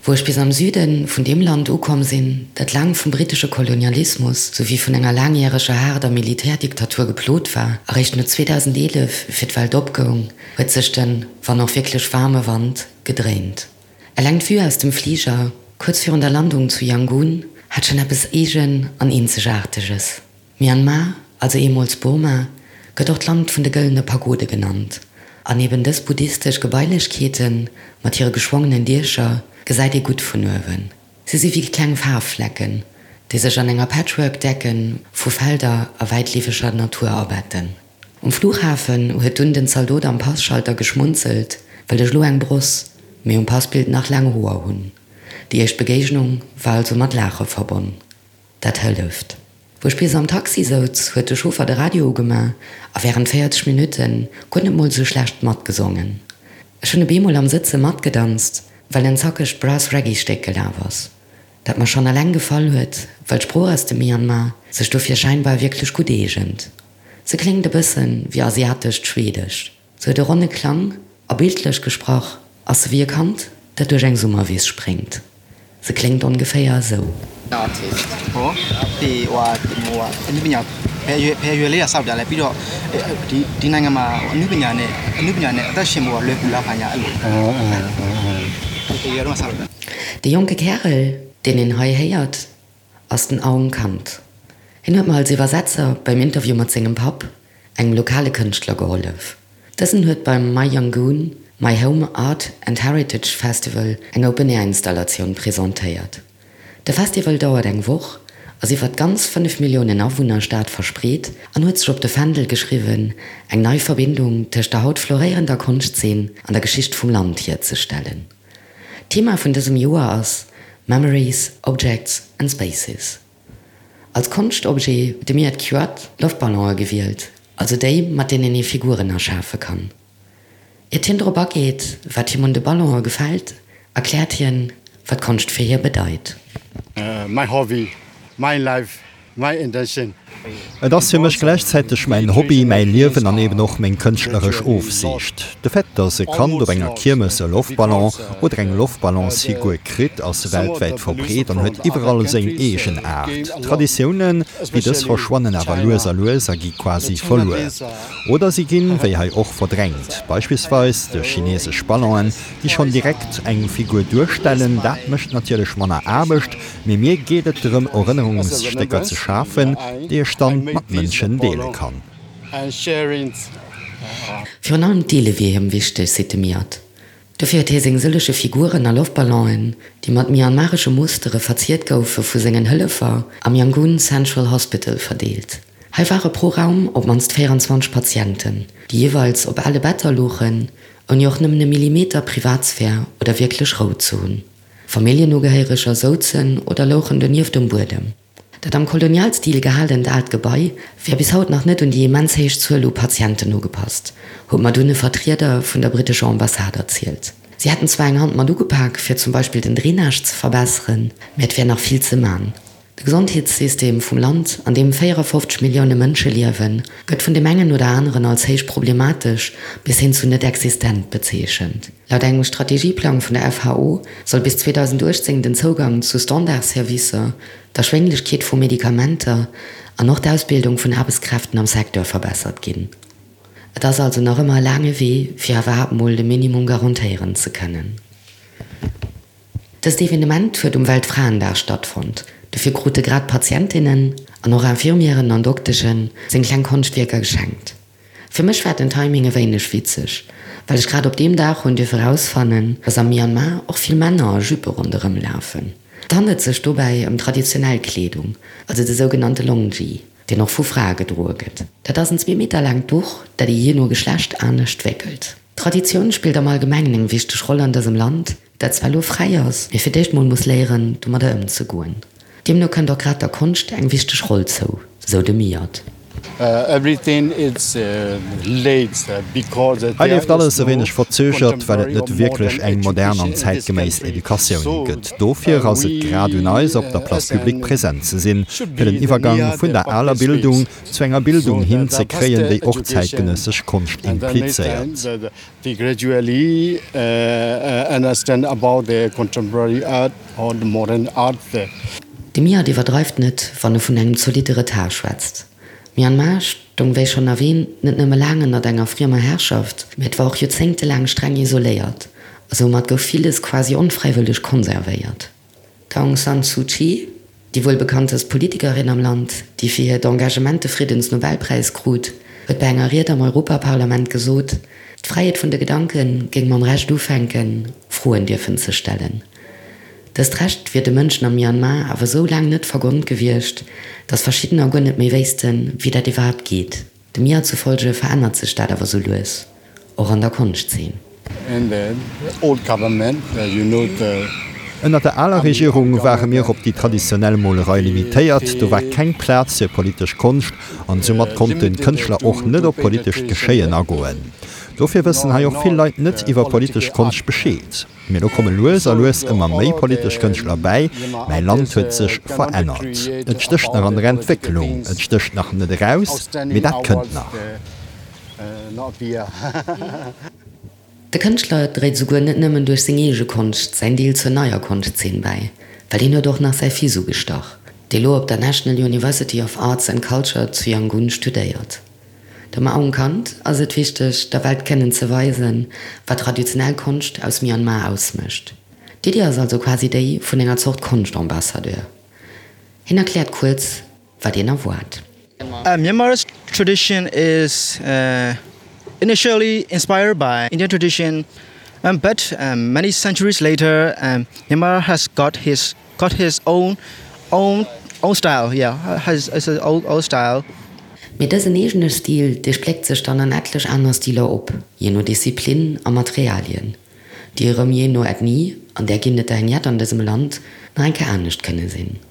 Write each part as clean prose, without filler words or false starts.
Wou ech bis am Süde vun deem Land ukomm sinn, dat laang vum brittesche Kolonialismus souwéi vun enger laangjäreger haarder Militärdiktatur geplot war, eréischt no 2011 fir d'Welt opgoung, huet sech den, wann och wierklech waarme Wand gedréint. Eleng d'Vue aus dem Fliger, kuerz virun der Landung zu Yangon, hat schonn eppes eegen an eenzegaarteges. Myanmar, also eemools Burma, gëtt och d'Land vun de gëllene Pagode genannt. An eben dës buddhistesch Gebailechkeete mat hire geschwongenen Diecher gesäit ee gutt vun uewen. Si si wéi kleng Faarfflecken, déi sech an enger Patchwork-Decke vu Felder a wäitleefeger Natur abetten. Um Flughafen huet dunn den Zaldot am Passchalter geschmunzelt, well ech elo eng Bross, mee um Passbild nach laang Hoer hunn. Déi éischt Begéignung war also mat Laache verbonn. Dat hëlleft. Wou ech bis am Taxi souz, huet de Chauffer de Radio ugema a wärend 40 Minutte guer net mol sou schlecht matgesongen. Ech hunn e beemol am Sëtze matgedanzt, well en zackegt Brass-Reggae-Stéck gelaf ass, dat mer schonn eleng gefall huet, well d'Sprooch aus dem Myanmar sech dofir scheinbar wierklech gutt eegent. Se kléngt e bëssen wéi asiatescht Schwedesch. Se huet e ronne Klang a bildlech gesprach ass se wéi e Kand, dat duerch eng Summerwiss spréngt. Se kléngt ongeféier esou. De jonke Kärel, deen een hei héiert, ass den Aung Kant. Hien huet mer als Iwwersetzer beim Interview mat sengem Papp, engem lokale Kënschtler, gehollef. Dësen huet beim My Yangoon, My Home Art and Heritage Festival eng Open-Air-Installatioun presentéiert. De Festival dauert eng Woch, ass iwwer d'ganz 5 Milliounen Awunner-Stad verspreet an huet sech op de Fändel geschriwwen, eng nei Verbindung tëscht der haut floréierender Konschtzeen an der Geschicht vum Land hierzestellen. D'Thema vun dësem Joer ass Memories, Objects and Spaces. Als Konschtobjet huet de Myat Kyoat Loftballone gewielt, also déi, mat deenen ee Figuren erschafe kann. Iert hien drop ageet, wat him un de Ballone gefält, erkläert hien, wat Konscht fir hie bedeit. My hobby, my life, My intention. Et ass fir mech gläichzäiteg mäin Hobby, mäi Liewen an eben och meng kënschtleresch Ofsiicht. De Fait, dass e Kand op enger Kiermes e Loftballon oder eng Loftballonsfigur kritt, ass weltwäit verbreet an huet iwwerall seng eegen Aart. Traditiounen wéi dës verschwannen awer lues a lues a gi quasi verluer. Oder si ginn, wéi hei och, verdrängt, beispillsweis duerch chinesesch Ballonen, déi schonn direkt eng Figur duerstellen. Dat mécht natierlech manner Aarbecht, Mee mir geet et drëm Erënnerungsstécker ze schafen, déi ech dann mat Mënschen deele kann. Virun allem d'Deele wier him wichteg, seet de Myat. Dofir huet hie seng sëllege Figuren a Loftballonen, déi mat myanmaresche Mustere verziert goufe, vu sengen Hëllefer am Yangon Central Hospital verdeelt. Hei ware pro Raum op d'mannst 24 Patienten, déi jeeweils op ale Better louchen, ouni och nëmmen e Millimeter Privatsphär oder wierklech Rou ze hunn. Familljenugehéiereger souzen oder louchen donieft um Buedem. Dat am Kolonialstil gehalent aalt Gebai wär bis haut nach net un déi immens héich Zuel u Patienten ugepasst, huet mer dunn e Vertrieder vun der brittescher Ambassade erzielt. Si hätten zwar eng Hand mat ugepak, fir zum Beispill den Drainage ze verbesseren, mä et wär nach vill ze man. De Gesondheetssystem vum Land, an deem 54 Millioune Mënsche liewen, gëtt vun deem engen oder aneren als héich problematesch bis hin zu net existent bezeechent. Laut engem Strategieplang vun der FHO soll bis 2018 den Zougang zu Standardservicer, d'Erschwénglechkeet vu Medikamenter an och d'Ausbildung vun Aarbechtskräften am Secteur verbessert ginn. Et ass also nach ëmmer e laange Wee, fir iwwerhaapt mol de Minimum garantéieren ze kënnen. Dëst Evenement huet um Weltfraendag stattfonnt. Dofir krute grad Patientinnen an och Infirmieren an Doktesche seng kleng Konschtwierker geschenkt. Fir mech war den Timing e wéineg witzeg, well ech grad op deem Dag hunn dierfe rausfannen, dass am Myanmar och vill Männer a Juppe ronderëm lafen. Et handelt sech dobäi ëm traditionell Kleedung, also de sougenannte Longyi, deen och vu Frae gedroe gëtt. Dat ass en zwee Meter laangt Duch, dat ee jee no Geschlecht anescht wéckelt. D'Traditioun spillt am Allgemengen eng wichteg Roll an dësem Land, dat zwar elo fräi ass, mee fir d'éischt mol muss léieren, domadder ëmzegoen. Deemno kënnt och grad der Konscht eng wichteg Roll zou, sou de Myat. Hei leeft alles e wéineg verzögert, well et net wierklech eng modern an zäitgeméiss Educatioun gëtt. Dofir ass et grad un eis, op der Place publique present ze sinn, fir den Iwwergang vun der aler Bildung zu enger Bildung hin ze kréien, déi och zäitgenëssesch Konscht implizéiert. De Miat iwwerdreift net, wann e vun engem zolitte Retard schwätzt. Myanmar stoung, wéi schonn erwäänt, net nëmme laang ënnert enger friemer Herrschaft, mä et war och joerzéngtelaang streng isoléiert, a soumat gouf villes quasi onfräiwëlleg konservéiert. D'Aung San Suu Kyi, déi wuel bekanntest Politikerin am Land, déi fir hiert Engagement de Friddensnobelpräis krut, huet bei enger Ried am Europaparlament gesot, d'Fräiheet vun de Gedanke géing mam Recht ufänken, Froen dierfen ze stellen. Dëst Recht wier de Mënschen am Myanmar awer esou laang net vergonnt gewiescht, datt verschiddener guer net méi wéissten, wéi dat iwwerhaapt geet. Dem Mia zufolge verännert sech dat awer sou lues, och an der Konschtzeen. Ënnert der aler Regierung ware mir op déi traditionell Molerei limitéiert, do war keng Plaz fir politesch Konscht an soumat konnten d'Kënschtler och net op politescht Geschéien agoen. Dofir wëssen hei och vill Leit net iwwer politesch Konscht Bescheed. Mee lo komme lues a lues ëmmer méi politesch Kënschtler bäi. Mäi Land huet sech verännert. Et stécht nach an der Entwécklung, et stécht nach net eraus, mee dat kënnt nach. De Kënschtler dréit esouguer net nëmmen duerch seng eege Konscht säin Deel zur neier Konschtzeen bäi, well hien huet och nach säi Fils ugestach, dee lo op der National University of Arts and Culture zu Yangon studéiert. Dem Aung Kant ass et wichteg, der Welt kënnen ze weisen, wat traditionell Konscht aus Myanmar ausmécht. D'Iddi ass also quasi déi vun enger Zort Konschtambassadeur. Hien erkläert kuerz, wat een erwaart. Myanmar's tradition is initially inspired by Indian tradition, but many centuries later, Myanmar has got his Got his own own own style, yeah, has his own own style. Mee dësen eegene Stil, dee spléckt sech dann an etlech aner Stiler op, jee no Disziplin a Materialien, déi erëm jee no Ethnie, an där ginn et der eng jett an dësem Land, nach eng Kéier anescht kënne sinn.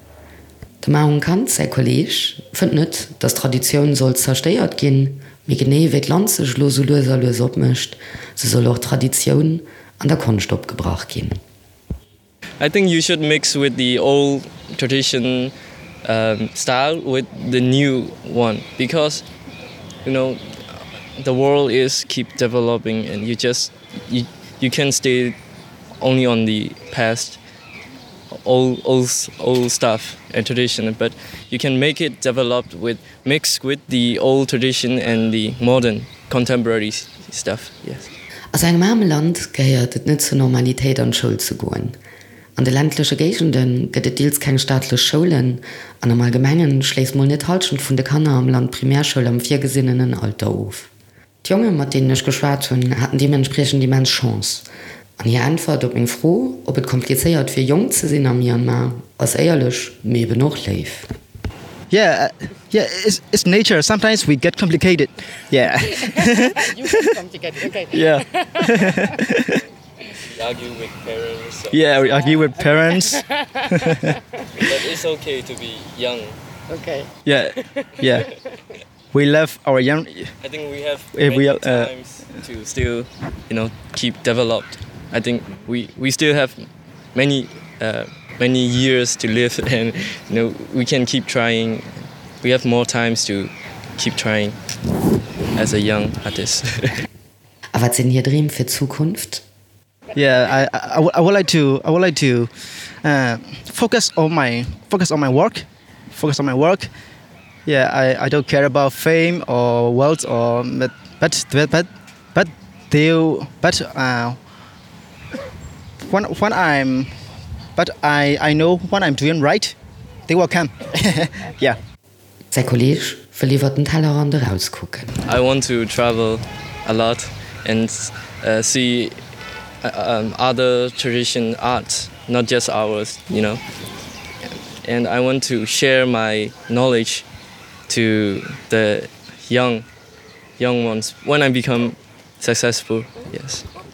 Dem Aung Kant säi Kolleeg fënnt net, datt d'Traditioun sollt zerstéiert ginn, mee genee wéi d'Land sech elo sou lues a lues opmécht, sou soll och d'Traditioun an der Konscht opgebrach ginn. I think you should mix with the old tradition um, style with the new one because you know the world is keep developing and you just you, you can stay only on the past old old old stuff and tradition but you can make it developed with mixed with the old tradition and the modern contemporary stuff yes. A sou engem aarme Land gehéiert et net zur Normalitéit an d'Schoul ze goen. An de ländleche Géigende gëtt et deels keng staatlech Schoulen an am Allgemengen schléisst mol net d'Hallschent vun de Kanner am Land d'Primärschoul am virgesinnenen Alter of. D'Jonge mat deenen ech geschwat hunn, haten deementspriechend immens Chance. An hir Äntwert op meng Fro, ob et komplizéiert wier jonk ze sinn am Myanmar, ass éierlech, mee eben och léif. Yeah, yeah, it's, it's nature. Sometimes we get complicated. Yeah. You get complicated, okay. Yeah. We argue with parents. So. Yeah, we argue with parents. But it's okay to be young. Okay. Yeah, yeah. We love our young. I think we have many we, uh, times to still you know keep developed. I think we we still have many uh, many years to live and you know we can keep trying. We have more times to keep trying as a young artist. A wat sinn hir Dreem fir d'Zukunft? Yeah, I, I, I would like to I would like to uh, focus on my focus on my work, focus on my work. Yeah, I, I don't care about fame or wealth or but but but but they but uh, when when I'm but I I know when I'm doing right, they will come. yeah. Säi Kolleeg wëll iwwer den Tellerrand erauskucken. I want to travel a lot and see other tradition art, not just ours, you know. And I want to share my knowledge to the young young ones when I become successful, yes.